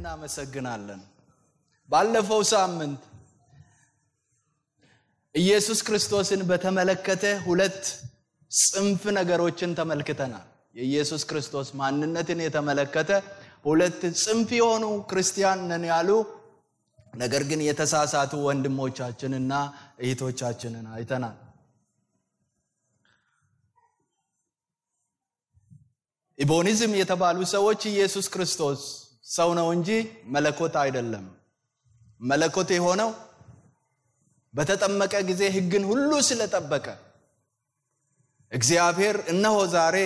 እናመሰግናለን። ባለፈው ሳምንት ኢየሱስ ክርስቶስን በተመለከተ ሁለት ጽንፍ ነገሮችን ተመልክተናል። የኢየሱስ ክርስቶስ ማንነትን የተመለከተ ሁለት ጽንፍ የሆኑ ክርስቲያን ነን ያሉ ነገር ግን የተሳሳቱ ወንድሞቻችንና እህቶቻችንን አይተናል። ኢቦኒዝም የተባሉ ሰዎች ኢየሱስ ክርስቶስ ሰው ነው እንጂ መለኮት አይደለም፣ መለኮት የሆነው በተጠመቀ ጊዜ ሕግን ሁሉ ስለጠበቀ እግዚአብሔር እነሆ ዛሬ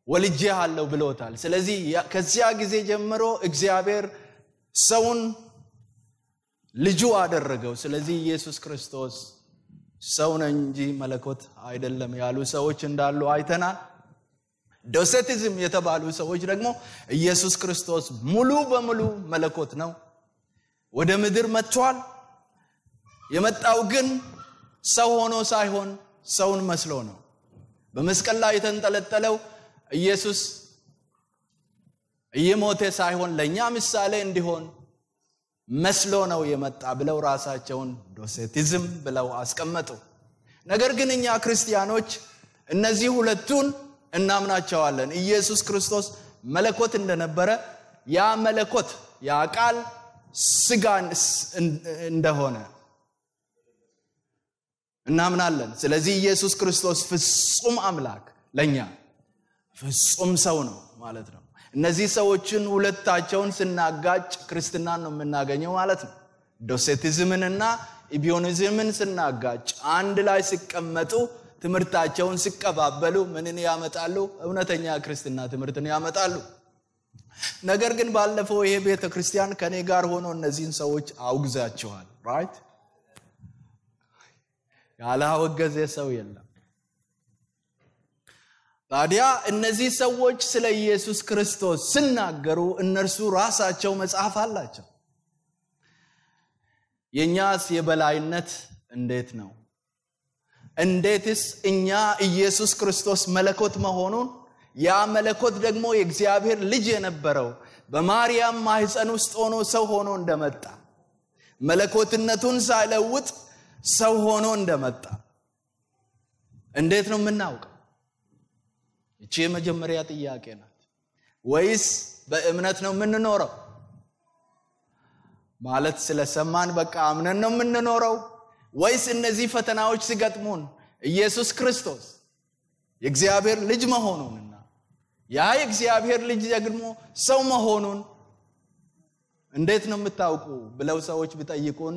ወልጄሃለሁ ብሎታል። ስለዚህ ከዚያ ጊዜ ጀምሮ እግዚአብሔር ሰውን ልጁ አደረገው። ስለዚህ ኢየሱስ ክርስቶስ ሰው ነው እንጂ መለኮት አይደለም ያሉ ሰዎች እንዳሉ አይተናል። ዶሴቲዝም የተባሉ ሰዎች ደግሞ ኢየሱስ ክርስቶስ ሙሉ በሙሉ መለኮት ነው፣ ወደ ምድር መጥቷል። የመጣው ግን ሰው ሆኖ ሳይሆን ሰውን መስሎ ነው። በመስቀል ላይ የተንጠለጠለው ኢየሱስ እየሞተ ሳይሆን ለኛ ምሳሌ እንዲሆን መስሎ ነው የመጣ ብለው ራሳቸውን ዶሴቲዝም ብለው አስቀመጡ። ነገር ግን እኛ ክርስቲያኖች እነዚህ ሁለቱን እናምናቸዋለን። ኢየሱስ ክርስቶስ መለኮት እንደነበረ ያ መለኮት ያ ቃል ስጋን እንደሆነ እናምናለን። ስለዚህ ኢየሱስ ክርስቶስ ፍጹም አምላክ ለኛ ፍጹም ሰው ነው ማለት ነው። እነዚህ ሰዎችን ሁለታቸውን ስናጋጭ ክርስትናን ነው የምናገኘው ማለት ነው። ዶሴቲዝምንና ኢቢዮኒዝምን ስናጋጭ አንድ ላይ ሲቀመጡ ትምህርታቸውን ሲቀባበሉ ምንን ያመጣሉ? እውነተኛ ክርስትና ትምህርትን ያመጣሉ። ነገር ግን ባለፈው ይሄ ቤተክርስቲያን ከኔ ጋር ሆኖ እነዚህን ሰዎች አውግዛቸዋል። ራይት? ያላወገዘ ሰው የለም። ታዲያ እነዚህ ሰዎች ስለ ኢየሱስ ክርስቶስ ሲናገሩ እነርሱ ራሳቸው መጽሐፍ አላቸው። የኛስ የበላይነት እንዴት ነው? እንዴትስ እኛ ኢየሱስ ክርስቶስ መለኮት መሆኑን ያ መለኮት ደግሞ የእግዚአብሔር ልጅ የነበረው በማርያም ማህፀን ውስጥ ሆኖ ሰው ሆኖ እንደመጣ መለኮትነቱን ሳይለውጥ ሰው ሆኖ እንደመጣ እንዴት ነው የምናውቀው? እቺ የመጀመሪያ ጥያቄ ናት። ወይስ በእምነት ነው የምንኖረው? ማለት ስለሰማን በቃ አምነን ነው የምንኖረው? ወይስ እነዚህ ፈተናዎች ሲገጥሙን ኢየሱስ ክርስቶስ የእግዚአብሔር ልጅ መሆኑንና ያ የእግዚአብሔር ልጅ ደግሞ ሰው መሆኑን እንዴት ነው የምታውቁ ብለው ሰዎች ቢጠይቁን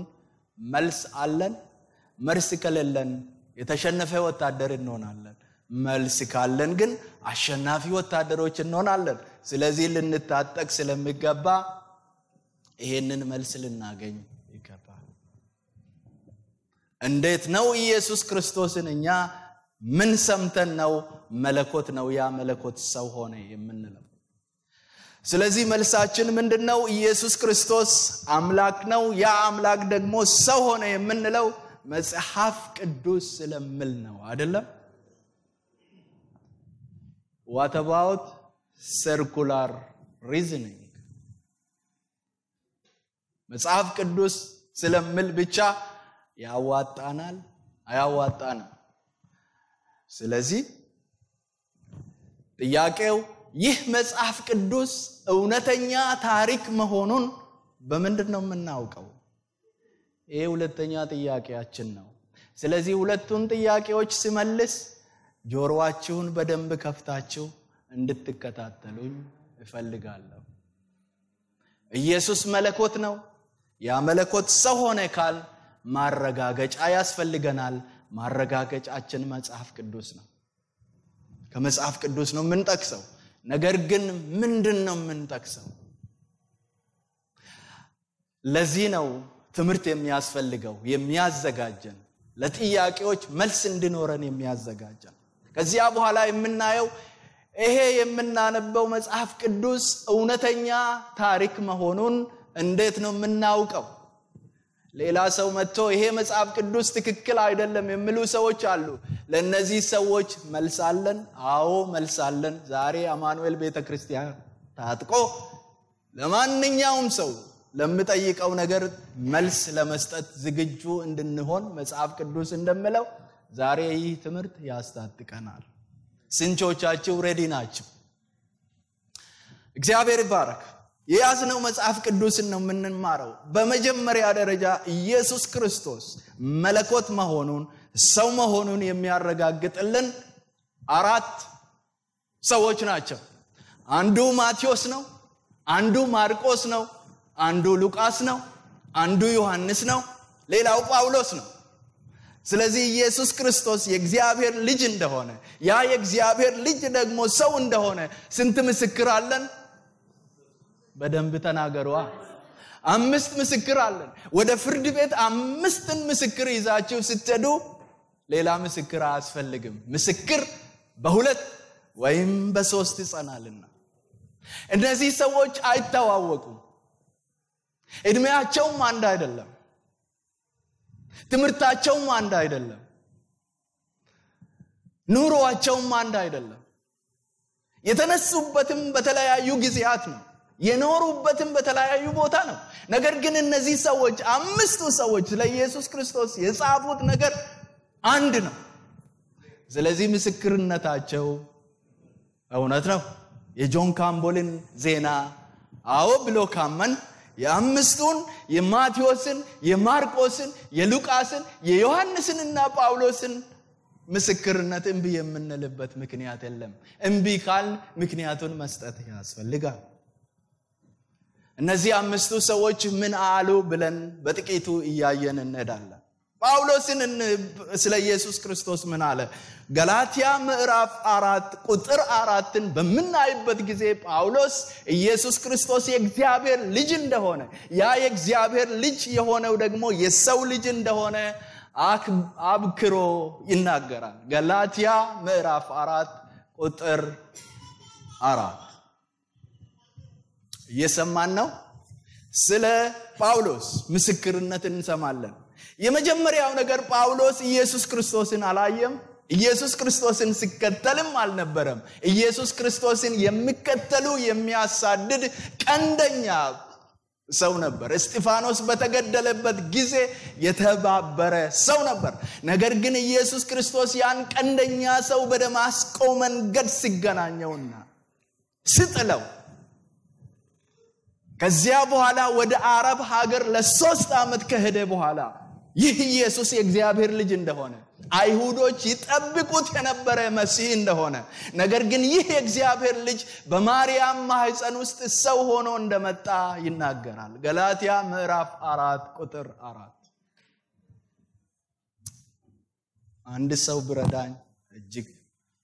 መልስ አለን? መልስ ከሌለን የተሸነፈ ወታደር እንሆናለን። መልስ ካለን ግን አሸናፊ ወታደሮች እንሆናለን። ስለዚህ ልንታጠቅ ስለሚገባ ይሄንን መልስ ልናገኝ ይገባል። እንዴት ነው ኢየሱስ ክርስቶስን እኛ ምን ሰምተን ነው መለኮት ነው ያ መለኮት ሰው ሆነ የምንለው? ስለዚህ መልሳችን ምንድነው? ኢየሱስ ክርስቶስ አምላክ ነው፣ ያ አምላክ ደግሞ ሰው ሆነ የምንለው መጽሐፍ ቅዱስ ስለሚል ነው አይደለም? What about circular reasoning? መጽሐፍ ቅዱስ ስለሚል ብቻ ያዋጣናል? አያዋጣንም። ስለዚህ ጥያቄው ይህ መጽሐፍ ቅዱስ እውነተኛ ታሪክ መሆኑን በምንድን ነው የምናውቀው? ይሄ ሁለተኛ ጥያቄያችን ነው። ስለዚህ ሁለቱን ጥያቄዎች ሲመልስ ጆሮአችሁን በደንብ ከፍታችሁ እንድትከታተሉኝ እፈልጋለሁ። ኢየሱስ መለኮት ነው፣ ያ መለኮት ሰው ሆነ ካል ማረጋገጫ ያስፈልገናል። ማረጋገጫችን መጽሐፍ ቅዱስ ነው። ከመጽሐፍ ቅዱስ ነው የምንጠቅሰው። ነገር ግን ምንድነው የምንጠቅሰው? ለዚህ ነው ትምህርት የሚያስፈልገው፣ የሚያዘጋጀን ለጥያቄዎች መልስ እንድኖረን የሚያዘጋጀን። ከዚያ በኋላ የምናየው ይሄ የምናነበው መጽሐፍ ቅዱስ እውነተኛ ታሪክ መሆኑን እንዴት ነው የምናውቀው? ሌላ ሰው መጥቶ ይሄ መጽሐፍ ቅዱስ ትክክል አይደለም የሚሉ ሰዎች አሉ። ለነዚህ ሰዎች መልስ አለን? አዎ መልስ አለን። ዛሬ አማኑኤል ቤተክርስቲያን ታጥቆ ለማንኛውም ሰው ለምጠይቀው ነገር መልስ ለመስጠት ዝግጁ እንድንሆን መጽሐፍ ቅዱስ እንደምለው ዛሬ ይህ ትምህርት ያስታጥቀናል። ስንቶቻችሁ ሬዲ ናችሁ? እግዚአብሔር ይባረክ። የያዝነው መጽሐፍ ቅዱስን ነው የምንማረው። በመጀመሪያ ደረጃ ኢየሱስ ክርስቶስ መለኮት መሆኑን ሰው መሆኑን የሚያረጋግጥልን 4 ሰዎች ናቸው። አንዱ ማቴዎስ ነው፣ አንዱ ማርቆስ ነው፣ አንዱ ሉቃስ ነው፣ አንዱ ዮሐንስ ነው፣ ሌላው ጳውሎስ ነው። ስለዚህ ኢየሱስ ክርስቶስ የእግዚአብሔር ልጅ እንደሆነ ያ የእግዚአብሔር ልጅ ደግሞ ሰው እንደሆነ ስንት ምስክር አለን? በደንብ ተናገሩ። 5 ምስክር አለን። ወደ ፍርድ ቤት 5 ምስክር ይዛችሁ ስትሄዱ ሌላ ምስክር አያስፈልግም። ምስክር በ2 ወይም በ3 ይጸናልና። እነዚህ ሰዎች አይተዋወቁም። እድሜያቸውም አንድ አይደለም። ትምህርታቸውም አንድ አይደለም። ኑሮአቸውም አንድ አይደለም። የተነሱበትም በተለያዩ ጊዜያት ነው። የኖሩበትም በተለያዩ ቦታ ነው። ነገር ግን እነዚህ ሰዎች 5ቱ ሰዎች ለኢየሱስ ክርስቶስ የጻፉት ነገር አንድ ነው። ስለዚህ ምስክርነታቸው እውነት ነው። የጆን ካምቦልን ዜና አዎ ብሎ ካመን የ5ቱን የማቴዎስን፣ የማርቆስን፣ የሉቃስን፣ የዮሐንስንና ጳውሎስን ምስክርነት እምቢ የምንልበት ምክንያት የለም። እምቢ ካል ምክንያቱን መስጠት ያስፈልጋል። እነዚህ 5ቱ ሰዎች ምን አሉ ብለን በጥቂቱ እያየን እንሄዳለን። ጳውሎስን ስለ ኢየሱስ ክርስቶስ ምን አለ? ገላትያ ምዕራፍ 4 ቁጥር 4ን በምናይበት ጊዜ ጳውሎስ ኢየሱስ ክርስቶስ የእግዚአብሔር ልጅ እንደሆነ ያ የእግዚአብሔር ልጅ የሆነው ደግሞ የሰው ልጅ እንደሆነ አብክሮ ይናገራል። ገላትያ ምዕራፍ 4 ቁጥር 4 እየሰማን ነው። ስለ ጳውሎስ ምስክርነት እንሰማለን። የመጀመሪያው ነገር ጳውሎስ ኢየሱስ ክርስቶስን አላየም። ኢየሱስ ክርስቶስን ሲከተልም አልነበረም። ኢየሱስ ክርስቶስን የሚከተሉ የሚያሳድድ ቀንደኛ ሰው ነበር። እስጢፋኖስ በተገደለበት ጊዜ የተባበረ ሰው ነበር። ነገር ግን ኢየሱስ ክርስቶስ ያን ቀንደኛ ሰው በደማስቆ መንገድ ሲገናኘውና ሲጥለው ከዚያ በኋላ ወደ አረብ ሀገር ለ3 ዓመት ከሄደ በኋላ ይህ ኢየሱስ የእግዚአብሔር ልጅ እንደሆነ አይሁዶች ይጠብቁት የነበረ መሲህ እንደሆነ ነገር ግን ይህ የእግዚአብሔር ልጅ በማርያም ማህፀን ውስጥ ሰው ሆኖ እንደመጣ ይናገራል። ገላትያ ምዕራፍ 4 ቁጥር 4 አንድ ሰው ብረዳኝ እጅግ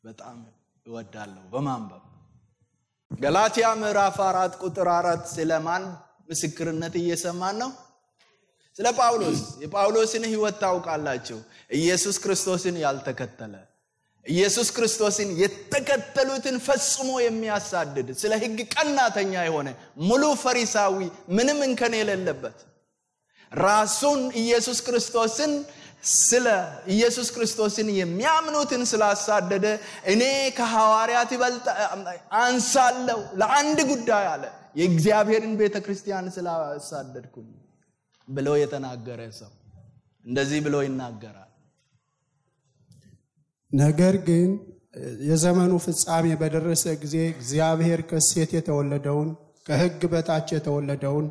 በጣም እወዳለሁ በማንበብ። ገላትያ ምዕራፍ 4 ቁጥር 4 ስለማን ምስክርነት እየሰማን ነው? ስለ ጳውሎስ። የጳውሎስን ህይወት ታውቃላችሁ። ኢየሱስ ክርስቶስን ያልተከተለ ኢየሱስ ክርስቶስን የተከተሉትን ፈጽሞ የሚያሳድድ ስለ ሕግ ቀናተኛ የሆነ ሙሉ ፈሪሳዊ ምንም እንከን የሌለበት ራሱን ኢየሱስ ክርስቶስን የሚያምኑትን ስላሳደደ እኔ ከሐዋርያት ይበልጥ አንሳለሁ ለአንድ ጉዳይ አለ የእግዚአብሔርን ቤተክርስቲያን ስላሳደድኩኝ ብሎ የተናገረ ሰው እንደዚህ ብሎ ይናገራል። ነገር ግን የዘመኑ ፍጻሜ በደረሰ ጊዜ እግዚአብሔር ከሴት የተወለደውን ከሕግ በታች የተወለደውን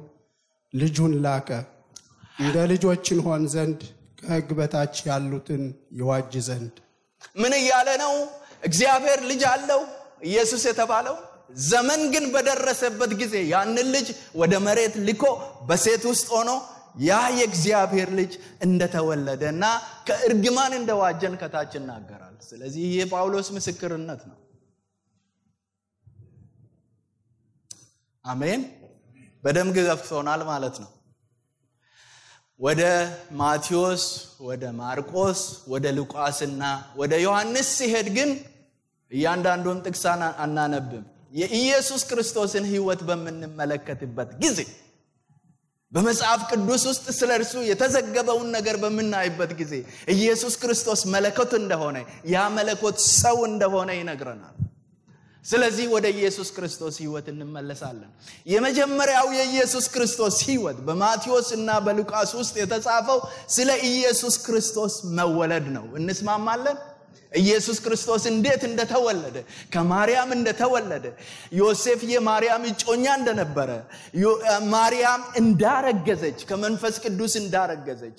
ልጁን ላከ፣ እንደ ልጆችን ሆን ዘንድ ከሕግ በታች ያሉትን ይዋጅ ዘንድ። ምን እያለ ነው? እግዚአብሔር ልጅ አለው ኢየሱስ የተባለው። ዘመን ግን በደረሰበት ጊዜ ያንን ልጅ ወደ መሬት ልኮ በሴት ውስጥ ሆኖ ያ የእግዚአብሔር ልጅ እንደተወለደና ከእርግማን እንደዋጀን ከታች ይናገራል። ስለዚህ ይህ ጳውሎስ ምስክርነት ነው። አሜን። በደም ገፍቶናል ማለት ነው። ወደ ማቴዎስ፣ ወደ ማርቆስ፣ ወደ ሉቃስና ወደ ዮሐንስ ሲሄድ ግን እያንዳንዱን ጥቅስ አናነብም። የኢየሱስ ክርስቶስን ህይወት በምንመለከትበት ጊዜ በመጽሐፍ ቅዱስ ውስጥ ስለርሱ የተዘገበውን ነገር በመናይበት ጊዜ ኢየሱስ ክርስቶስ መለኮት እንደሆነ ያ መለኮት ሰው እንደሆነ ይነግረናል። ስለዚህ ወደ ኢየሱስ ክርስቶስ ሕይወት እንመለሳለን። የመጀመሪያው የኢየሱስ ክርስቶስ ሕይወት በማቴዎስ እና በሉቃስ ውስጥ የተጻፈው ስለ ኢየሱስ ክርስቶስ መወለድ ነው። እንስማማለን? ኢየሱስ ክርስቶስ እንዴት እንደተወለደ፣ ከማርያም እንደተወለደ፣ ዮሴፍ የማርያም እጮኛ እንደነበረ፣ ማርያም እንዳረገዘች ከመንፈስ ቅዱስ እንዳረገዘች፣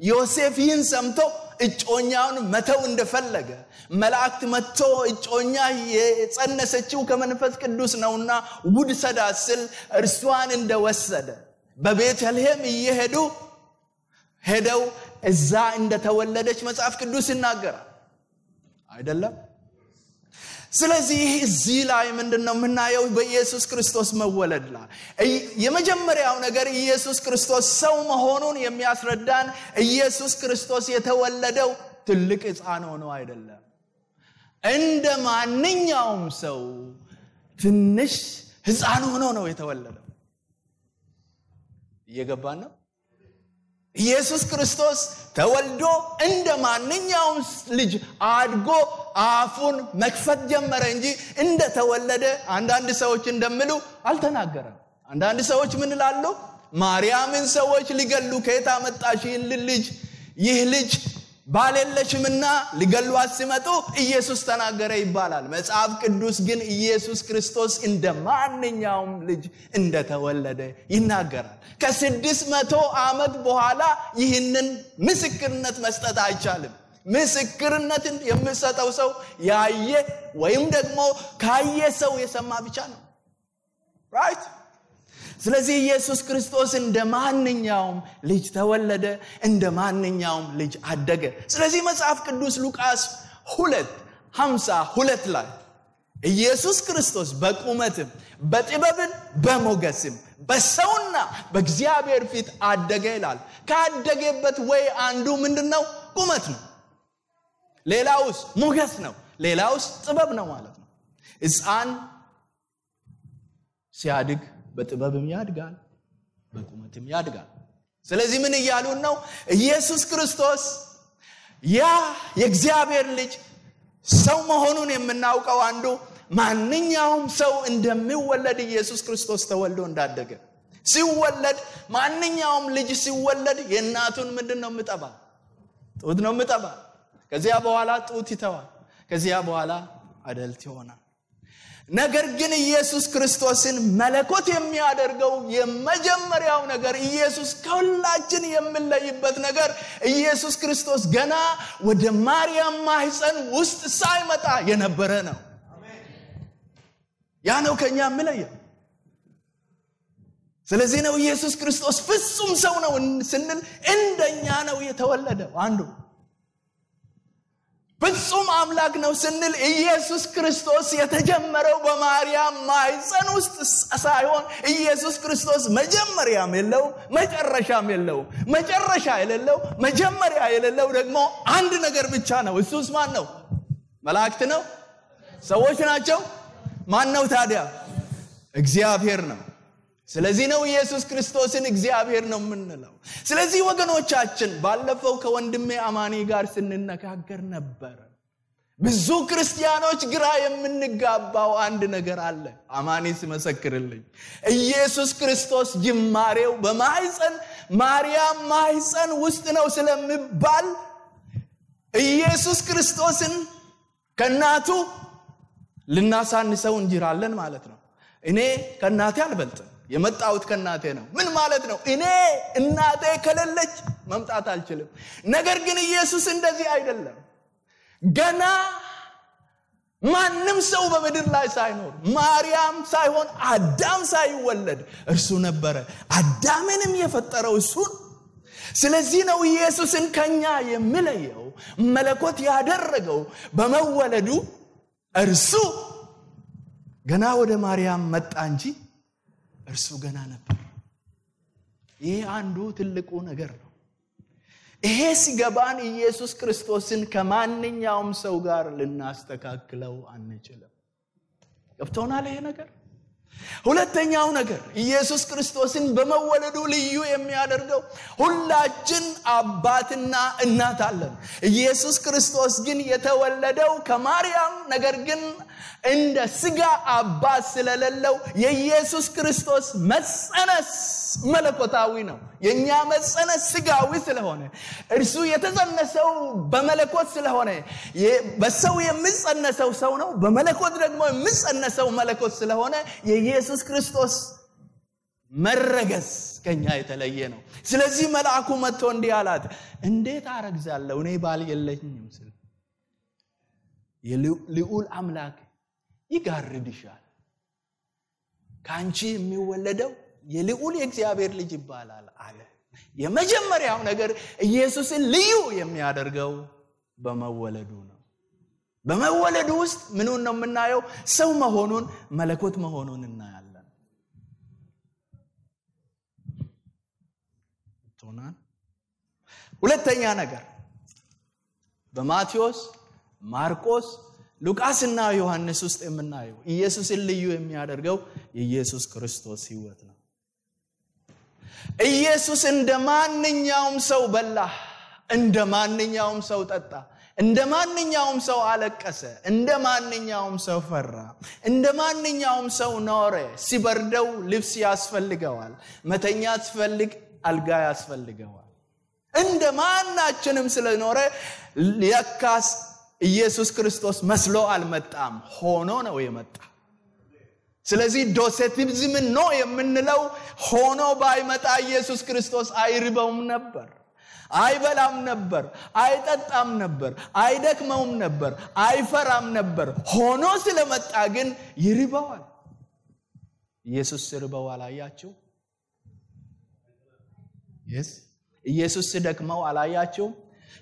ዮሴፍ ይህን ሰምቶ እጮኛውን መተው እንደፈለገ፣ መላእክት መጥቶ እጮኛ የጸነሰችው ከመንፈስ ቅዱስ ነውና ውሰዳት ሲል እርሷን እንደወሰደ፣ በቤተልሔም ሄደው እዛ እንደተወለደች መጽሐፍ ቅዱስ ይናገራል አይደለም? ስለዚህ እዚህ ላይ ምንድነው የምናየው? በኢየሱስ ክርስቶስ መወለድ ላይ የመጀመሪያው ነገር ኢየሱስ ክርስቶስ ሰው መሆኑን የሚያስረዳን ኢየሱስ ክርስቶስ የተወለደው ትልቅ ሕፃን ሆኖ አይደለም። እንደ ማንኛውም ሰው ትንሽ ሕፃን ሆኖ ነው የተወለደው። እየገባን ነው? ኢየሱስ ክርስቶስ ተወልዶ እንደ ማንኛውም ልጅ አድጎ አፉን መክፈት ጀመረ እንጂ እንደ ተወለደ አንዳንድ ሰዎች እንደሚሉ አልተናገረም። አንዳንድ ሰዎች ምን ይላሉ? ማርያምን ሰዎች ሊገሉ ከየት አመጣሽ ይህ ልጅ ባለለሽምና ሊገሉት ሲመጡ ኢየሱስ ተናገረ ይባላል። መጽሐፍ ቅዱስ ግን ኢየሱስ ክርስቶስ እንደ ማንኛውም ልጅ እንደተወለደ ይናገራል። ከ600 ዓመት በኋላ ይህንን ምስክርነት መስጠት አይቻልም። ምስክርነትን የሚሰጠው ሰው ያየ ወይም ደግሞ ካየ ሰው የሰማ ብቻ ነው። ራይት? ስለዚህ ኢየሱስ ክርስቶስ እንደ ማንኛውም ልጅ ተወለደ፣ እንደ ማንኛውም ልጅ አደገ። ስለዚህ መጽሐፍ ቅዱስ ሉቃስ 2:52 ላይ ኢየሱስ ክርስቶስ በቁመትም በጥበብም በሞገስም በሰውና በእግዚአብሔር ፊት አደገ ይላል። ካደገበት ወይ አንዱ ምንድነው? ቁመት ነው። ሌላውስ ሞገስ ነው። ሌላውስ ጥበብ ነው ማለት ነው። ሕፃን ሲያድግ በጥበብም ያድጋል፣ በቁመትም ያድጋል። ስለዚህ ምን እያሉን ነው? ኢየሱስ ክርስቶስ ያ የእግዚአብሔር ልጅ ሰው መሆኑን የምናውቀው አንዱ ማንኛውም ሰው እንደሚወለድ ኢየሱስ ክርስቶስ ተወልዶ እንዳደገ ሲወለድ፣ ማንኛውም ልጅ ሲወለድ የእናቱን ምንድነው የምጠባ? ጡት ነው የምጠባ። ከዚያ በኋላ ጡት ይተዋል። ከዚያ በኋላ አደልት ይሆናል። ነገር ግን ኢየሱስ ክርስቶስን መለኮት የሚያደርገው የመጀመሪያው ነገር ኢየሱስ ከሁላችን የሚለይበት ነገር ኢየሱስ ክርስቶስ ገና ወደ ማርያም ማህፀን ውስጥ ሳይመጣ የነበረ ነው። ያ ነው ከኛ የሚለየው። ስለዚህ ነው ኢየሱስ ክርስቶስ ፍጹም ሰው ነው ስንል እንደኛ ነው የተወለደው። አንዱ ፍጹም አምላክ ነው ስንል ኢየሱስ ክርስቶስ የተጀመረው በማርያም ማህፀን ውስጥ ሳይሆን ኢየሱስ ክርስቶስ መጀመሪያም የለው መጨረሻም የለው። መጨረሻ የሌለው መጀመሪያ የሌለው ደግሞ አንድ ነገር ብቻ ነው። እሱስ ማን ነው? መላእክት ነው? ሰዎች ናቸው? ማን ነው ታዲያ? እግዚአብሔር ነው። ስለዚህ ነው ኢየሱስ ክርስቶስን እግዚአብሔር ነው የምንለው። ስለዚህ ወገኖቻችን ባለፈው ከወንድሜ አማኒ ጋር ስንነጋገር ነበር። ብዙ ክርስቲያኖች ግራ የምንጋባው አንድ ነገር አለ። አማኒ ሲመሰክርልኝ ኢየሱስ ክርስቶስ ጅማሬው በማህፀን ማርያም ማህፀን ውስጥ ነው ስለሚባል ኢየሱስ ክርስቶስን ከናቱ ልናሳንሰው እንጅራለን ማለት ነው። እኔ ከናቴ አልበልጥም፣ የመጣሁት ከናቴ ነው። ምን ማለት ነው? እኔ እናቴ ከሌለች መምጣት አልችልም። ነገር ግን ኢየሱስ እንደዚህ አይደለም። ገና ማንም ሰው በምድር ላይ ሳይኖር ማርያም ሳይሆን አዳም ሳይወለድ እርሱ ነበረ። አዳምንም የፈጠረው እሱ። ስለዚህ ነው ኢየሱስን ከኛ የሚለየው መለኮት ያደረገው በመወለዱ እርሱ ገና ወደ ማርያም መጣ እንጂ እርሱ ገና ነበር። ይሄ አንዱ ትልቁ ነገር ነው። ይሄ ሲገባን ኢየሱስ ክርስቶስን ከማንኛውም ሰው ጋር ልናስተካክለው አንችልም። ገብቶናል ይሄ ነገር? ሁለተኛው ነገር ኢየሱስ ክርስቶስን በመወለዱ ልዩ የሚያደርገው ሁላችን አባትና እናት አለን። ኢየሱስ ክርስቶስ ግን የተወለደው ከማርያም ነገር ግን እንደ ስጋ አባት ስለሌለው የኢየሱስ ክርስቶስ መጸነስ መለኮታዊ ነው። የኛ መጸነስ ስጋዊ ስለሆነ እርሱ የተጸነሰው በመለኮት ስለሆነ በሰው የሚጸነሰው ሰው ነው፣ በመለኮት ደግሞ የሚጸነሰው መለኮት ስለሆነ የኢየሱስ ክርስቶስ መረገዝ ከኛ የተለየ ነው። ስለዚህ መልአኩ መጥቶ እንዲህ አላት፣ እንዴት አረግዛለሁ እኔ ባል የለኝም ሲል የልዑል አምላክ ይጋርድሻል፣ ካንቺ የሚወለደው የልዑል የእግዚአብሔር ልጅ ይባላል አለ። የመጀመሪያው ነገር ኢየሱስን ልዩ የሚያደርገው በመወለዱ ነው። በመወለዱ ውስጥ ምኑን ነው የምናየው? ሰው መሆኑን፣ መለኮት መሆኑን እናያለን። ቶናን ሁለተኛ ነገር በማቴዎስ፣ ማርቆስ፣ ሉቃስና ዮሐንስ ውስጥ የምናየው ኢየሱስን ልዩ የሚያደርገው የኢየሱስ ክርስቶስ ሕይወት ነው። ኢየሱስ እንደማንኛውም ሰው በላ፣ እንደማንኛውም ሰው ጠጣ፣ እንደማንኛውም ሰው አለቀሰ፣ እንደማንኛውም ሰው ፈራ፣ እንደማንኛውም ሰው ኖረ። ሲበርደው ልብስ ያስፈልገዋል፣ መተኛት ሲፈልግ አልጋ ያስፈልገዋል። እንደማናችንም ስለኖረ ለካስ ኢየሱስ ክርስቶስ መስሎ አልመጣም፣ ሆኖ ነው የመጣ። ስለዚህ ዶሴቲዝም ነው የምንለው ሆኖ ባይመጣ ኢየሱስ ክርስቶስ አይርበውም ነበር፣ አይበላም ነበር፣ አይጠጣም ነበር፣ አይደክመውም ነበር፣ አይፈራም ነበር። ሆኖ ስለመጣ ግን ይርበዋል። ኢየሱስ ሲርበው አላያችሁ? ኢየሱስ ሲደክመው አላያችሁ?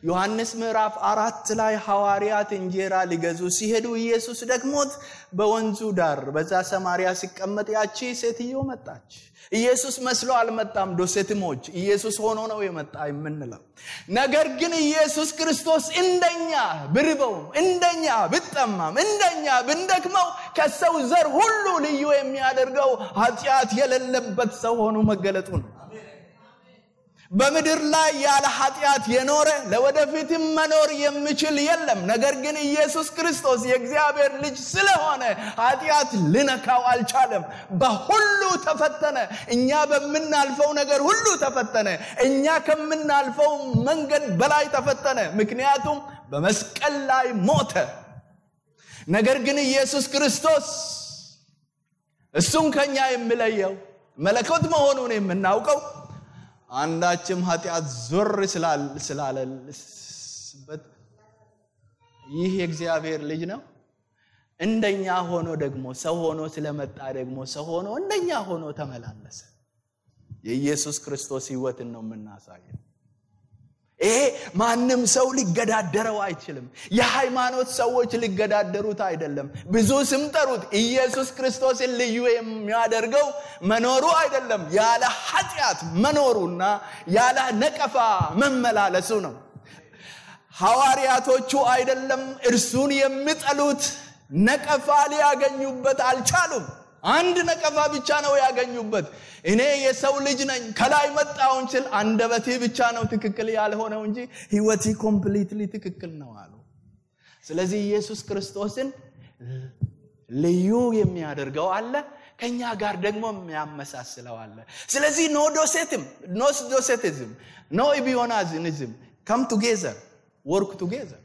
ዮሐንስ ምዕራፍ 4 ላይ ሐዋርያት እንጀራ ሊገዙ ሲሄዱ ኢየሱስ ደክሞት በወንዙ ዳር በዛ ሰማርያ ሲቀመጥ ያቺ ሴትዮ መጣች። ኢየሱስ መስሎ አልመጣም። ዶሴቲሞች ኢየሱስ ሆኖ ነው የመጣ የምንለው። ነገር ግን ኢየሱስ ክርስቶስ እንደኛ ብርበውም፣ እንደኛ ብጠማም፣ እንደኛ ብንደክመው ከሰው ዘር ሁሉ ልዩ የሚያደርገው ኃጢአት የሌለበት ሰው ሆኖ መገለጡ ነው። በምድር ላይ ያለ ኃጢአት የኖረ ለወደፊትም መኖር የሚችል የለም። ነገር ግን ኢየሱስ ክርስቶስ የእግዚአብሔር ልጅ ስለሆነ ኃጢአት ልነካው አልቻለም። በሁሉ ተፈተነ። እኛ በምናልፈው ነገር ሁሉ ተፈተነ። እኛ ከምናልፈው መንገድ በላይ ተፈተነ። ምክንያቱም በመስቀል ላይ ሞተ። ነገር ግን ኢየሱስ ክርስቶስ እሱን ከኛ የሚለየው መለኮት መሆኑን የምናውቀው አንዳችም ኃጢአት ዞር ስላለበት ይህ የእግዚአብሔር ልጅ ነው። እንደኛ ሆኖ ደግሞ ሰው ሆኖ ስለመጣ ደግሞ ሰው ሆኖ እንደኛ ሆኖ ተመላለሰ። የኢየሱስ ክርስቶስ ሕይወትን ነው የምናሳየው። ይሄ ማንም ሰው ሊገዳደረው አይችልም። የሃይማኖት ሰዎች ሊገዳደሩት አይደለም። ብዙ ስም ጠሩት። ኢየሱስ ክርስቶስን ልዩ የሚያደርገው መኖሩ አይደለም፣ ያለ ኃጢአት መኖሩና ያለ ነቀፋ መመላለሱ ነው። ሐዋርያቶቹ አይደለም እርሱን የሚጠሉት ነቀፋ ሊያገኙበት አልቻሉም። አንድ ነቀፋ ብቻ ነው ያገኙበት። እኔ የሰው ልጅ ነኝ ከላይ መጣሁ እንጂ አንደበቴ ብቻ ነው ትክክል ያልሆነው እንጂ ሕይወቴ ኮምፕሊትሊ ትክክል ነው አሉ። ስለዚህ ኢየሱስ ክርስቶስን ልዩ የሚያደርገው አለ፣ ከኛ ጋር ደግሞ የሚያመሳስለው አለ። ስለዚህ ኖ ዶሴቲዝም ኖ ኢቢዮናዝም come together, work together።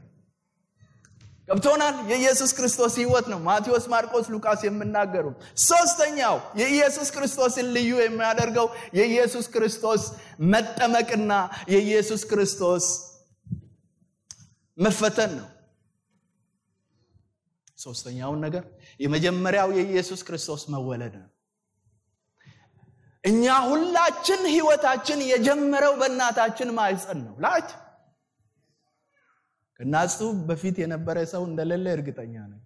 ገብቶናል? የኢየሱስ ክርስቶስ ሕይወት ነው ማቴዎስ፣ ማርቆስ፣ ሉቃስ የሚናገሩ። ሶስተኛው የኢየሱስ ክርስቶስን ልዩ የሚያደርገው የኢየሱስ ክርስቶስ መጠመቅና የኢየሱስ ክርስቶስ መፈተን ነው። ሶስተኛው ነገር የመጀመሪያው የኢየሱስ ክርስቶስ መወለድ ነው። እኛ ሁላችን ሕይወታችን የጀመረው በእናታችን ማህፀን ነው። ላች ከናሱ በፊት የነበረ ሰው እንደሌለ እርግጠኛ ነኝ።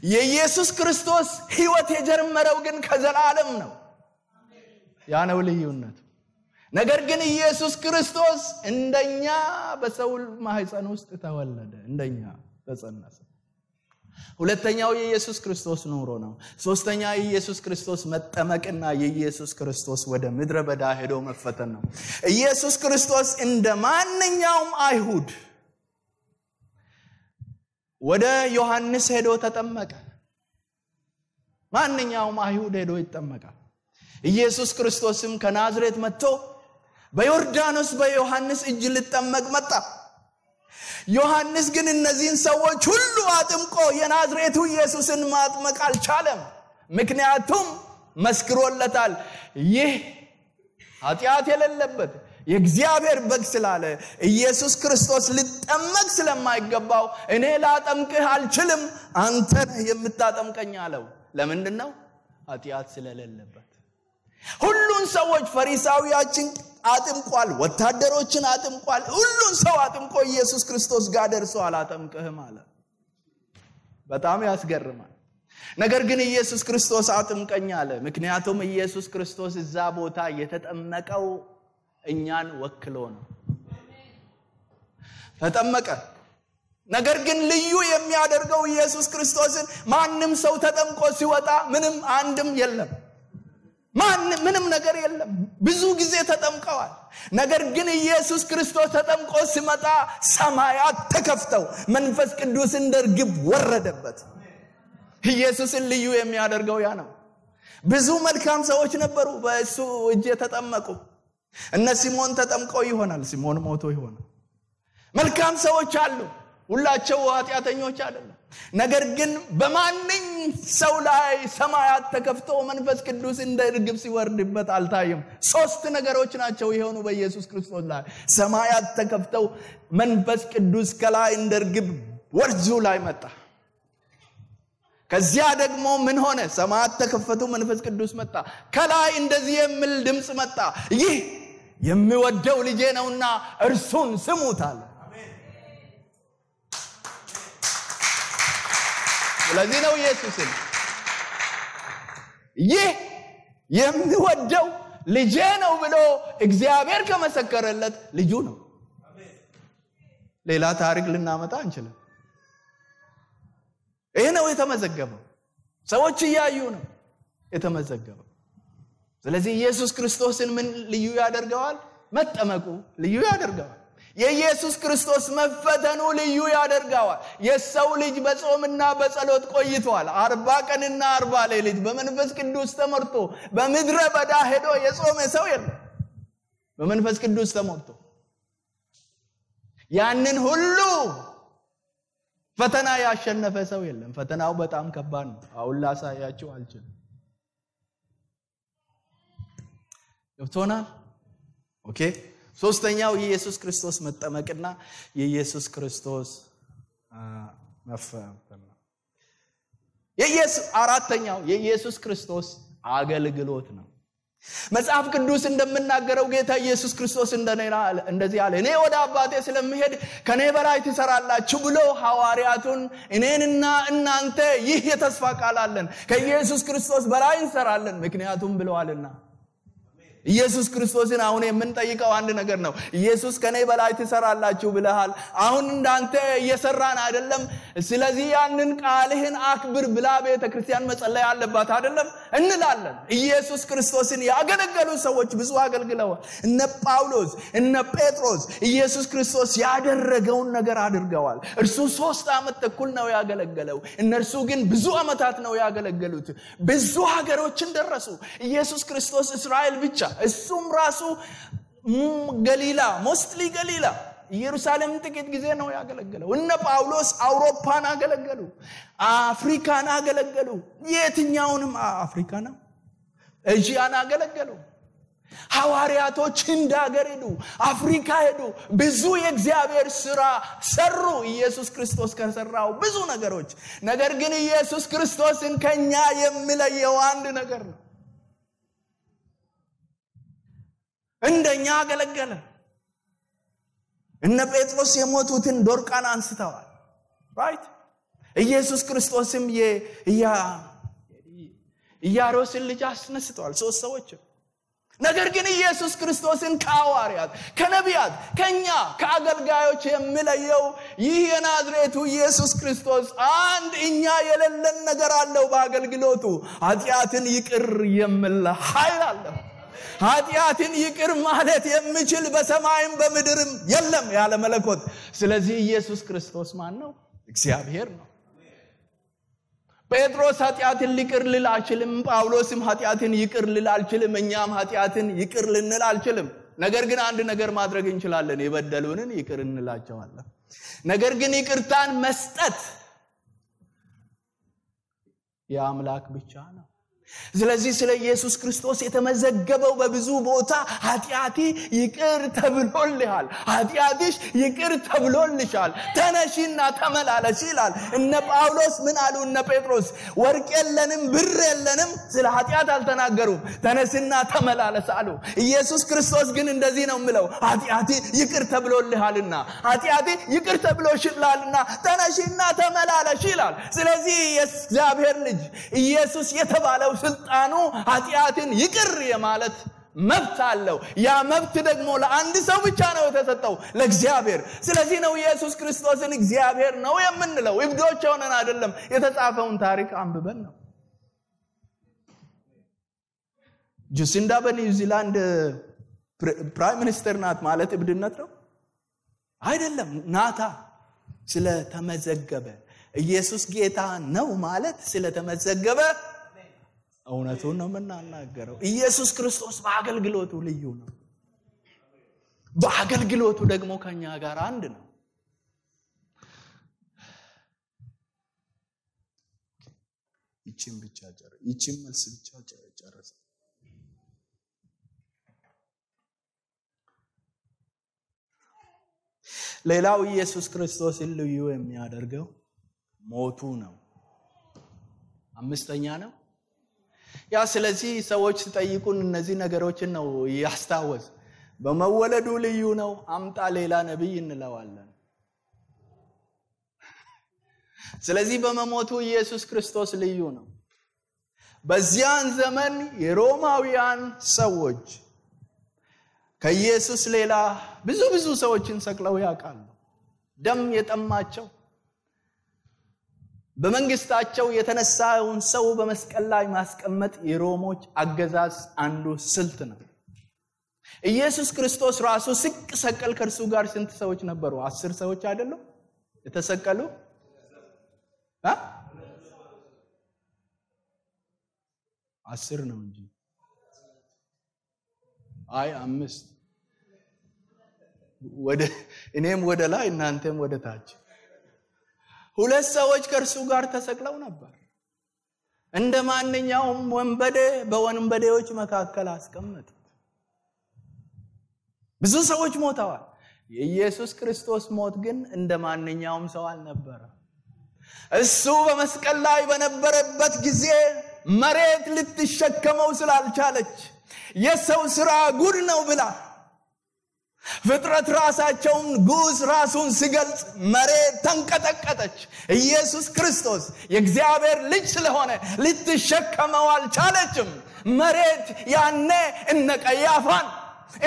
የኢየሱስ ክርስቶስ ሕይወት የጀመረው ግን ከዘላለም ነው። ያ ነው ልዩነቱ። ነገር ግን ኢየሱስ ክርስቶስ እንደኛ በሰው ማህፀን ውስጥ ተወለደ፣ እንደኛ ተጸነሰ። ሁለተኛው የኢየሱስ ክርስቶስ ኑሮ ነው። ሶስተኛ የኢየሱስ ክርስቶስ መጠመቅና የኢየሱስ ክርስቶስ ወደ ምድረ በዳ ሄዶ መፈተን ነው። ኢየሱስ ክርስቶስ እንደ ማንኛውም አይሁድ ወደ ዮሐንስ ሄዶ ተጠመቀ። ማንኛውም አይሁድ ሄዶ ይጠመቃል። ኢየሱስ ክርስቶስም ከናዝሬት መጥቶ በዮርዳኖስ በዮሐንስ እጅ ሊጠመቅ መጣ። ዮሐንስ ግን እነዚህን ሰዎች ሁሉ አጥምቆ የናዝሬቱ ኢየሱስን ማጥመቅ አልቻለም። ምክንያቱም መስክሮለታል፣ ይህ ኃጢአት የሌለበት የእግዚአብሔር በግ ስላለ ኢየሱስ ክርስቶስ ሊጠመቅ ስለማይገባው እኔ ላጠምቅህ አልችልም፣ አንተ ነህ የምታጠምቀኝ አለው። ለምንድን ነው? ኃጢአት ስለሌለበት። ሁሉን ሰዎች ፈሪሳውያችን አጥምቋል፣ ወታደሮችን አጥምቋል፣ ሁሉን ሰው አጥምቆ ኢየሱስ ክርስቶስ ጋር ደርሶ አላጠምቅህም አለ። በጣም ያስገርማል። ነገር ግን ኢየሱስ ክርስቶስ አጥምቀኝ አለ። ምክንያቱም ኢየሱስ ክርስቶስ እዛ ቦታ የተጠመቀው እኛን ወክሎ ነው። ተጠመቀ። ነገር ግን ልዩ የሚያደርገው ኢየሱስ ክርስቶስን ማንም ሰው ተጠምቆ ሲወጣ ምንም አንድም የለም፣ ምንም ነገር የለም። ብዙ ጊዜ ተጠምቀዋል። ነገር ግን ኢየሱስ ክርስቶስ ተጠምቆ ሲመጣ ሰማያት ተከፍተው መንፈስ ቅዱስ እንደ ርግብ ወረደበት። ኢየሱስን ልዩ የሚያደርገው ያ ነው። ብዙ መልካም ሰዎች ነበሩ በእሱ እጅ የተጠመቁ። እነ ሲሞን ተጠምቀው ይሆናል፣ ሲሞን ሞቶ ይሆናል። መልካም ሰዎች አሉ፣ ሁላቸው ኃጢአተኞች አይደለም። ነገር ግን በማንኝ ሰው ላይ ሰማያት ተከፍተው መንፈስ ቅዱስ እንደ ርግብ ሲወርድበት አልታየም። ሶስት ነገሮች ናቸው የሆኑ በኢየሱስ ክርስቶስ ላይ። ሰማያት ተከፍተው መንፈስ ቅዱስ ከላይ እንደ ርግብ ወርዙ ላይ መጣ። ከዚያ ደግሞ ምን ሆነ? ሰማያት ተከፈቱ፣ መንፈስ ቅዱስ መጣ። ከላይ እንደዚህ የሚል ድምጽ መጣ፣ ይህ የሚወደው ልጄ ነውና እርሱን ስሙት አለ። ስለዚህ ነው ኢየሱስን ይህ የሚወደው ልጄ ነው ብሎ እግዚአብሔር ከመሰከረለት ልጁ ነው። ሌላ ታሪክ ልናመጣ አንችልም። ይሄ ነው የተመዘገበው። ሰዎች እያዩ ነው የተመዘገበው። ስለዚህ ኢየሱስ ክርስቶስን ምን ልዩ ያደርገዋል? መጠመቁ ልዩ ያደርገዋል። የኢየሱስ ክርስቶስ መፈተኑ ልዩ ያደርገዋል። የሰው ልጅ በጾምና በጸሎት ቆይቷል። 40 ቀንና 40 ሌሊት በመንፈስ ቅዱስ ተመርቶ በምድረ በዳ ሄዶ የጾመ ሰው የለም። በመንፈስ ቅዱስ ተመርቶ ያንን ሁሉ ፈተና ያሸነፈ ሰው የለም። ፈተናው በጣም ከባድ ነው። አሁን ላሳያችሁ አልችልም። ገብቶናል? ኦኬ። ሶስተኛው የኢየሱስ ክርስቶስ መጠመቅና የኢየሱስ ክርስቶስ መፈተን ነው። አራተኛው የኢየሱስ ክርስቶስ አገልግሎት ነው። መጽሐፍ ቅዱስ እንደምናገረው ጌታ ኢየሱስ ክርስቶስ እንደዚህ አለ፣ እኔ ወደ አባቴ ስለምሄድ ከኔ በላይ ትሰራላችሁ ብሎ ሐዋርያቱን እኔንና እናንተ ይህ የተስፋ ቃል አለን፣ ከኢየሱስ ክርስቶስ በላይ እንሰራለን ምክንያቱም ብለዋልና። ኢየሱስ ክርስቶስን አሁን የምንጠይቀው አንድ ነገር ነው። ኢየሱስ ከኔ በላይ ትሰራላችሁ ብለሃል፣ አሁን እንዳንተ እየሰራን አይደለም። ስለዚህ ያንን ቃልህን አክብር ብላ ቤተክርስቲያን መጸለይ አለባት አይደለም እንላለን። ኢየሱስ ክርስቶስን ያገለገሉ ሰዎች ብዙ አገልግለዋል። እነ ጳውሎስ እነ ጴጥሮስ ኢየሱስ ክርስቶስ ያደረገውን ነገር አድርገዋል። እርሱ 3 ዓመት ተኩል ነው ያገለገለው፣ እነርሱ ግን ብዙ ዓመታት ነው ያገለገሉት። ብዙ ሀገሮችን ደረሱ። ኢየሱስ ክርስቶስ እስራኤል ብቻ እሱም ራሱ ገሊላ ሞስትሊ ገሊላ ኢየሩሳሌም ጥቂት ጊዜ ነው ያገለገለው። እነ ጳውሎስ አውሮፓን አገለገሉ፣ አፍሪካን አገለገሉ። የትኛውንም አፍሪካና ኤዥያን አገለገሉ። ሐዋርያቶች ህንድ ሀገር ሄዱ፣ አፍሪካ ሄዱ፣ ብዙ የእግዚአብሔር ሥራ ሰሩ። ኢየሱስ ክርስቶስ ከሰራው ብዙ ነገሮች። ነገር ግን ኢየሱስ ክርስቶስን ከኛ የሚለየው አንድ ነገር ነው። እንደኛ አገለገለ። እነ ጴጥሮስ የሞቱትን ዶርቃን አንስተዋል። ራይት። ኢየሱስ ክርስቶስም የኢያሮስን ልጅ አስነስተዋል። 3 ሰዎች ነገር ግን ኢየሱስ ክርስቶስን ከሐዋርያት ከነቢያት ከኛ ከአገልጋዮች የሚለየው ይህ የናዝሬቱ ኢየሱስ ክርስቶስ አንድ እኛ የሌለን ነገር አለው በአገልግሎቱ ኃጢአትን ይቅር የሚል ኃይል አለው ኃጢአትን ይቅር ማለት የሚችል በሰማይም በምድርም የለም ያለ መለኮት ስለዚህ ኢየሱስ ክርስቶስ ማን ነው እግዚአብሔር ነው ጴጥሮስ ኃጢአትን ይቅር ሊል አይችልም ጳውሎስም ኃጢአትን ይቅር ሊል አይችልም እኛም ኃጢአትን ይቅር ልንል አንችልም ነገር ግን አንድ ነገር ማድረግ እንችላለን የበደሉንን ይቅር እንላቸዋለን ነገር ግን ይቅርታን መስጠት የአምላክ ብቻ ነው ስለዚህ ስለ ኢየሱስ ክርስቶስ የተመዘገበው በብዙ ቦታ ኃጢአቲ ይቅር ተብሎልሃል ኃጢአትሽ ይቅር ተብሎልሻል ተነሺና ተመላለሽ ይላል እነ ጳውሎስ ምን አሉ እነ ጴጥሮስ ወርቅ የለንም ብር የለንም ስለ ኃጢአት አልተናገሩም ተነስና ተመላለስ አሉ ኢየሱስ ክርስቶስ ግን እንደዚህ ነው የሚለው ኃጢአቲ ይቅር ተብሎልሃልና ኃጢአቲ ይቅር ተብሎሽላልና ተነሺና ተመላለሽ ይላል ስለዚህ የእግዚአብሔር ልጅ ኢየሱስ የተባለው ስልጣኑ ኃጢአትን ይቅር የማለት መብት አለው ያ መብት ደግሞ ለአንድ ሰው ብቻ ነው የተሰጠው ለእግዚአብሔር ስለዚህ ነው ኢየሱስ ክርስቶስን እግዚአብሔር ነው የምንለው እብዶች ሆነን አይደለም የተጻፈውን ታሪክ አንብበን ነው ጁሲንዳ በኒውዚላንድ ፕራይም ሚኒስተር ናት ማለት እብድነት ነው አይደለም ናታ ስለተመዘገበ ኢየሱስ ጌታ ነው ማለት ስለተመዘገበ እውነቱን ነው የምናናገረው ኢየሱስ ክርስቶስ በአገልግሎቱ ልዩ ነው በአገልግሎቱ ደግሞ ከኛ ጋር አንድ ነው ይቺም መልስ ብቻ ጨረሰ ሌላው ኢየሱስ ክርስቶስን ልዩ የሚያደርገው ሞቱ ነው አምስተኛ ነው ያ ስለዚህ ሰዎች ሲጠይቁን እነዚህ ነገሮችን ነው ያስታወስ በመወለዱ ልዩ ነው አምጣ ሌላ ነብይ እንለዋለን ስለዚህ በመሞቱ ኢየሱስ ክርስቶስ ልዩ ነው በዚያን ዘመን የሮማውያን ሰዎች ከኢየሱስ ሌላ ብዙ ሰዎችን ሰቅለው ያውቃሉ ደም የጠማቸው በመንግስታቸው የተነሳውን ሰው በመስቀል ላይ ማስቀመጥ የሮሞች አገዛዝ አንዱ ስልት ነው ኢየሱስ ክርስቶስ ራሱ ሲሰቀል ከርሱ ጋር ስንት ሰዎች ነበሩ 10 ሰዎች አይደለም የተሰቀሉ 10 ነው እንጂ አይ 5 እኔም ወደ ላይ እናንተም ወደ ታች 2 ሰዎች ከርሱ ጋር ተሰቅለው ነበር እንደማንኛውም ወንበዴ በወንበዴዎች መካከል አስቀመጡት ብዙ ሰዎች ሞተዋል የኢየሱስ ክርስቶስ ሞት ግን እንደማንኛውም ሰው አልነበረም እሱ በመስቀል ላይ በነበረበት ጊዜ መሬት ልትሸከመው ስላልቻለች የሰው ሥራ ጉድ ነው ብላ ፍጥረት ራሳቸውን ጉስ ራሱን ሲገልጽ መሬት ተንቀጠቀጠች ኢየሱስ ክርስቶስ የእግዚአብሔር ልጅ ስለሆነ ልትሸከመው አልቻለችም መሬት ያኔ እነ ቀያፋን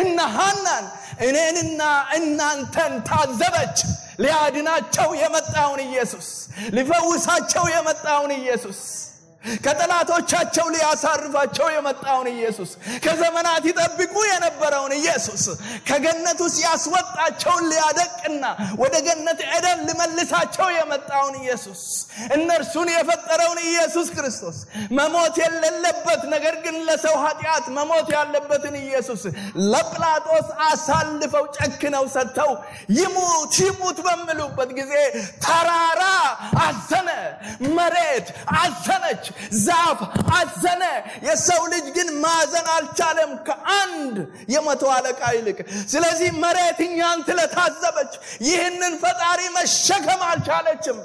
እነ ሐናን እኔንና እናንተን ታዘበች ሊያድናቸው የመጣውን ኢየሱስ ሊፈውሳቸው የመጣውን ኢየሱስ ከጠላቶቻቸው ሊያሳርፋቸው የመጣውን ኢየሱስ ከዘመናት ይጠብቁ የነበረውን ኢየሱስ ከገነት ውስጥ ያስወጣቸውን ሊያደቅና ወደ ገነት ኤደን ሊመልሳቸው የመጣውን ኢየሱስ እነርሱን የፈጠረውን ኢየሱስ ክርስቶስ መሞት የሌለበት ነገር ግን ለሰው ኃጢአት መሞት ያለበትን ኢየሱስ ለጲላጦስ አሳልፈው ጨክነው ሰጥተው ይሙት በሚሉበት ጊዜ ተራራ አዘነ መሬት አዘነች ዛፍ አዘነ የሰው ልጅ ግን ማዘን አልቻለም ከአንድ የመቶ አለቃ ይልቅ ስለዚህ መሬት እኛን ስለታዘበች ይህንን ፈጣሪ መሸከም አልቻለችም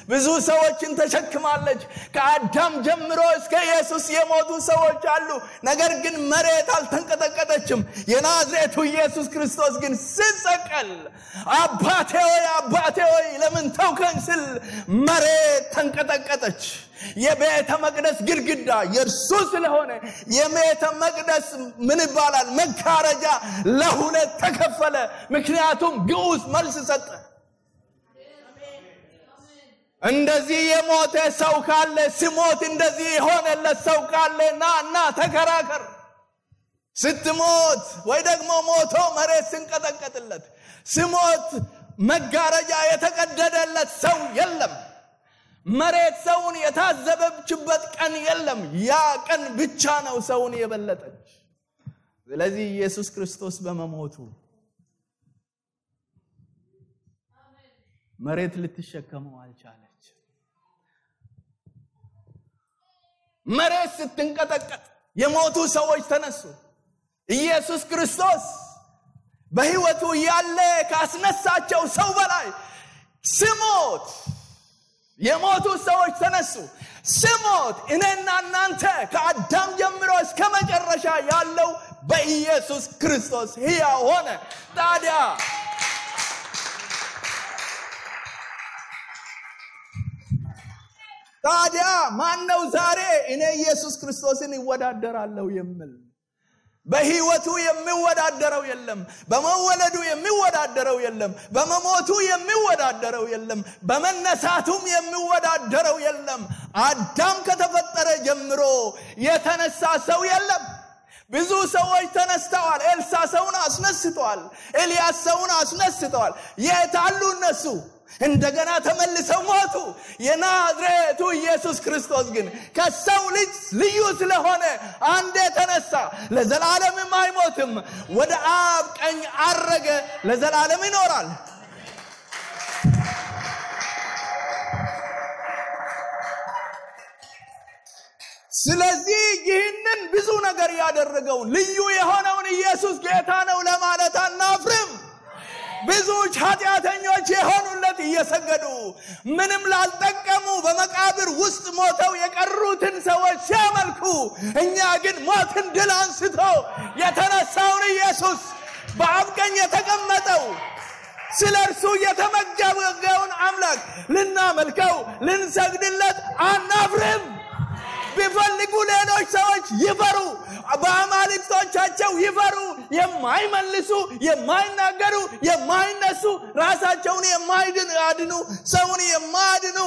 ብዙ ሰዎችን ተሸክማለች። ከአዳም ጀምሮ እስከ ኢየሱስ የሞቱ ሰዎች አሉ። ነገር ግን መሬት አልተንቀጠቀጠችም። የናዝሬቱ ኢየሱስ ክርስቶስ ግን ሲሰቀል አባቴ ሆይ ለምን ተውከኝ ሲል መሬት ተንቀጠቀጠች። የቤተ መቅደስ ግድግዳ የእርሱ ስለሆነ የቤተ መቅደስ ምን ይባላል መጋረጃ ለሁለት ተከፈለ። ምክንያቱም ግዑዝ መልስ ሰጠ። እንደዚህ የሞተ ሰው ካለ ሲሞት እንደዚህ የሆነለት ሰው ካለ ና ተከራከር። ስትሞት ወይ ደግሞ ሞቶ መሬት ሲንቀጠቀጥለት ሲሞት መጋረጃ የተቀደደለት ሰው የለም። መሬት ሰውን የታዘበችበት ቀን የለም። ያ ቀን ብቻ ነው ሰውን የበለጠች። ስለዚህ ኢየሱስ ክርስቶስ በመሞቱ መሬት ልትሸከመው አልቻለች። መሬት ስትንቀጠቀጥ የሞቱ ሰዎች ተነሱ። ኢየሱስ ክርስቶስ በሕይወቱ ያለ ካስነሳቸው ሰው በላይ ሲሞት የሞቱ ሰዎች ተነሱ። ሲሞት እኔና እናንተ ከአዳም ጀምሮ እስከ መጨረሻ ያለው በኢየሱስ ክርስቶስ ሕያው ሆነ። ታዲያ ማነው ዛሬ እኔ ኢየሱስ ክርስቶስን ይወዳደራለሁ የሚል? በሕይወቱ የሚወዳደረው የለም። በመወለዱ የሚወዳደረው የለም። በመሞቱ የሚወዳደረው የለም። በመነሳቱም የሚወዳደረው የለም። አዳም ከተፈጠረ ጀምሮ የተነሳ ሰው የለም። ብዙ ሰዎች ተነስተዋል። ኤልሳ ሰውን አስነስተዋል። ኤልያስ ሰውን አስነስተዋል። የት አሉ እነሱ? እንደገና ተመልሰው ሞቱ። የናዝሬቱ ኢየሱስ ክርስቶስ ግን ከሰው ልጅ ልዩ ስለሆነ አንዴ ተነሳ፣ ለዘላለምም አይሞትም። ወደ አብ ቀኝ አረገ፣ ለዘላለም ይኖራል። ስለዚህ ይህንን ብዙ ነገር ያደረገውን ልዩ የሆነውን ኢየሱስ ጌታ ነው ለማለት አናፍርም። ብዙዎች ኃጢአተኞች የሆኑለት እየሰገዱ ምንም ላልጠቀሙ በመቃብር ውስጥ ሞተው የቀሩትን ሰዎች ሲያመልኩ፣ እኛ ግን ሞትን ድል አንስቶ የተነሳውን ኢየሱስ በአብ ቀኝ የተቀመጠው ስለ እርሱ የተመገበውን አምላክ ልናመልከው ልንሰግድለት አናፍርም። ቢፈልጉ ሌሎች ሰዎች ይፈሩ፣ በአማልክቶቻቸው ይፈሩ። የማይመልሱ የማይናገሩ የማይነሱ ራሳቸውን የማይድኑ ሰውን የማያድኑ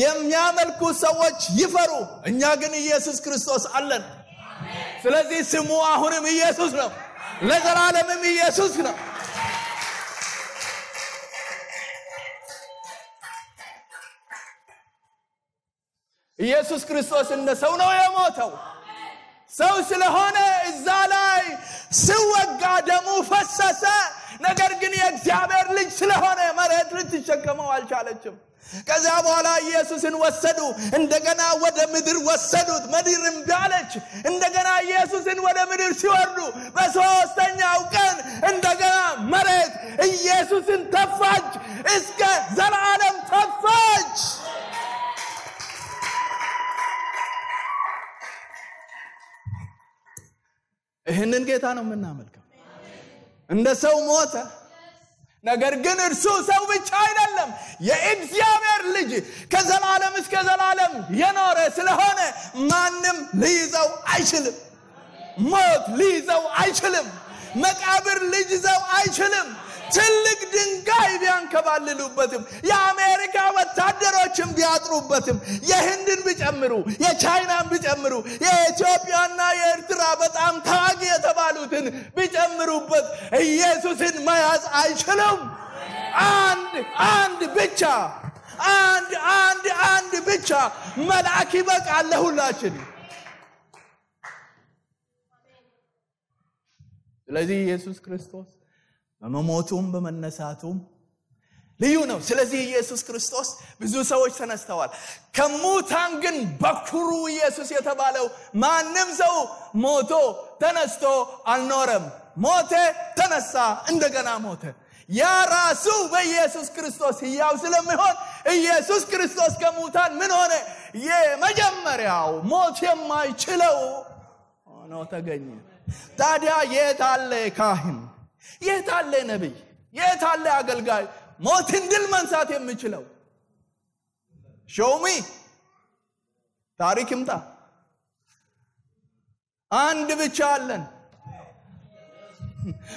የሚያመልኩ ሰዎች ይፈሩ። እኛ ግን ኢየሱስ ክርስቶስ አለን። ስለዚህ ስሙ አሁንም ኢየሱስ ነው፣ ለዘላለምም ኢየሱስ ነው። ኢየሱስ ክርስቶስ እንደ ሰው ነው የሞተው። ሰው ስለሆነ እዛ ላይ ሲወጋ ደሙ ፈሰሰ። ነገር ግን የእግዚአብሔር ልጅ ስለሆነ መሬት ልትሸከመው አልቻለችም። ከዚያ በኋላ ኢየሱስን ወሰዱ። እንደገና ወደ ምድር ወሰዱት። ምድር እምቢ አለች። እንደገና ኢየሱስን ወደ ምድር ሲወርዱ በሦስተኛው ቀን እንደገና መሬት ኢየሱስን ተፋች፣ እስከ ዘላለም ተፋች። ይህንን ጌታ ነው የምናመልከው። እንደ ሰው ሞተ። ነገር ግን እርሱ ሰው ብቻ አይደለም፣ የእግዚአብሔር ልጅ ከዘላለም እስከ ዘላለም የኖረ ስለሆነ ማንም ሊይዘው አይችልም። ሞት ሊይዘው አይችልም። መቃብር ሊይዘው አይችልም። ትልቅ ድንጋይ ቢያንከባልሉበትም፣ የአሜሪካ ወታደሮችን ቢያጥሩበትም፣ የህንድን ቢጨምሩ፣ የቻይናን ቢጨምሩ፣ የኢትዮጵያና የኤርትራ በጣም ታዋቂ የተባሉትን ቢጨምሩበት ኢየሱስን መያዝ አይችሉም። አንድ ብቻ መልአክ ይበቃል ለሁላችን። ስለዚህ ኢየሱስ ክርስቶስ በመሞቱም በመነሳቱም ልዩ ነው። ስለዚህ ኢየሱስ ክርስቶስ ብዙ ሰዎች ተነስተዋል። ከሙታን ግን በኩሩ ኢየሱስ የተባለው ማንም ሰው ሞቶ ተነስቶ አልኖረም። ሞተ፣ ተነሳ፣ እንደገና ሞተ። ያ ራሱ በኢየሱስ ክርስቶስ ሕያው ስለሚሆን ኢየሱስ ክርስቶስ ከሙታን ምን ሆነ? የመጀመሪያው ሞት የማይችለው ሆኖ ተገኘ። ታዲያ የት አለ ካህን? የት አለ ነብይ? የት አለ አገልጋይ ሞትን ድል መንሳት የሚችለው? ሾሚ ታሪክ ይምጣ። አንድ ብቻ አለን፣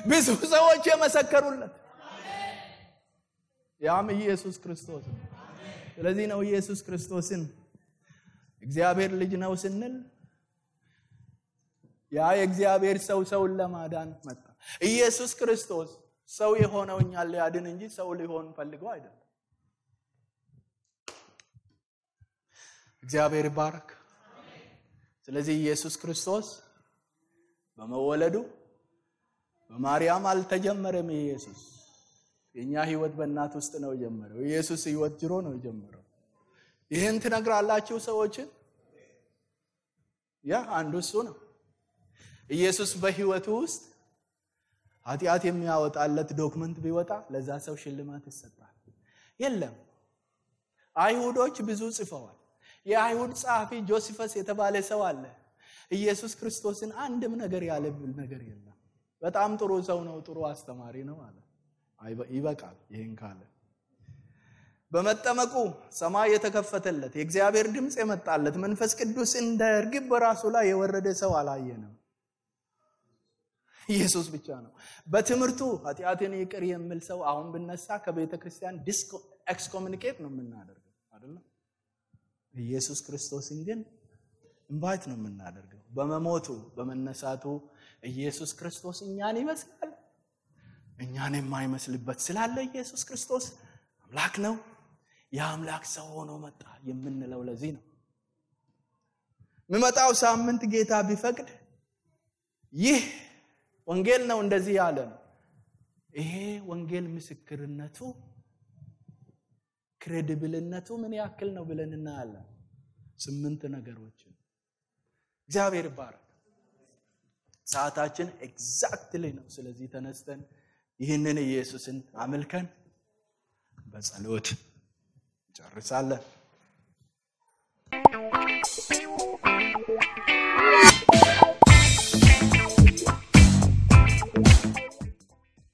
ብዙ ሰዎች የመሰከሩለት፣ ያም ኢየሱስ ክርስቶስ ነው። ስለዚህ ነው ኢየሱስ ክርስቶስን እግዚአብሔር ልጅ ነው ስንል ያ የእግዚአብሔር ሰውን ለማዳን መጣ። ኢየሱስ ክርስቶስ ሰው የሆነው እኛን ሊያድን እንጂ ሰው ሊሆን ፈልጎ አይደለም። እግዚአብሔር ይባረክ። ስለዚህ ኢየሱስ ክርስቶስ በመወለዱ በማርያም አልተጀመረም። ኢየሱስ የኛ ህይወት በእናት ውስጥ ነው የጀመረው። ኢየሱስ ህይወት ጅሮ ነው የጀመረው። ይሄን ትነግራላችሁ ሰዎች? ያ አንዱ እሱ ነው። ኢየሱስ በህይወቱ ውስጥ ኃጢአት የሚያወጣለት ዶክመንት ቢወጣ ለዛ ሰው ሽልማት ይሰጣል። የለም አይሁዶች ብዙ ጽፈዋል። የአይሁድ ጸሐፊ ጆሴፈስ የተባለ ሰው አለ። ኢየሱስ ክርስቶስን አንድም ነገር ያለብል ነገር የለም። በጣም ጥሩ ሰው ነው፣ ጥሩ አስተማሪ ነው አለ። ይበቃል ይሄን ካለ። በመጠመቁ ሰማይ የተከፈተለት፣ የእግዚአብሔር ድምጽ የመጣለት፣ መንፈስ ቅዱስ እንደ እርግብ በራሱ ላይ የወረደ ሰው አላየንም። ኢየሱስ ብቻ ነው። በትምህርቱ ኃጢአትን ይቅር የሚል ሰው አሁን ብነሳ ከቤተ ክርስቲያን ኤክስኮሙኒኬት ነው የምናደርገው አይደል? ኢየሱስ ክርስቶስን ግን ኢንቫይት ነው የምናደርገው። በመሞቱ በመነሳቱ ኢየሱስ ክርስቶስ እኛን ይመስላል። እኛን የማይመስልበት ስላለ ኢየሱስ ክርስቶስ አምላክ ነው። የአምላክ ሰው ሆኖ መጣ የምንለው ለዚህ ነው። የሚመጣው ሳምንት ጌታ ቢፈቅድ ይህ ወንጌል ነው እንደዚህ ያለ ነው። ይሄ ወንጌል ምስክርነቱ ክሬዲብልነቱ ምን ያክል ነው ብለን እናያለን። 8 ነገሮችን። እግዚአብሔር ይባረክ። ሰዓታችን ኤግዛክትሊ ነው። ስለዚህ ተነስተን ይህንን ኢየሱስን አመልከን በጸሎት ጨርሳለን።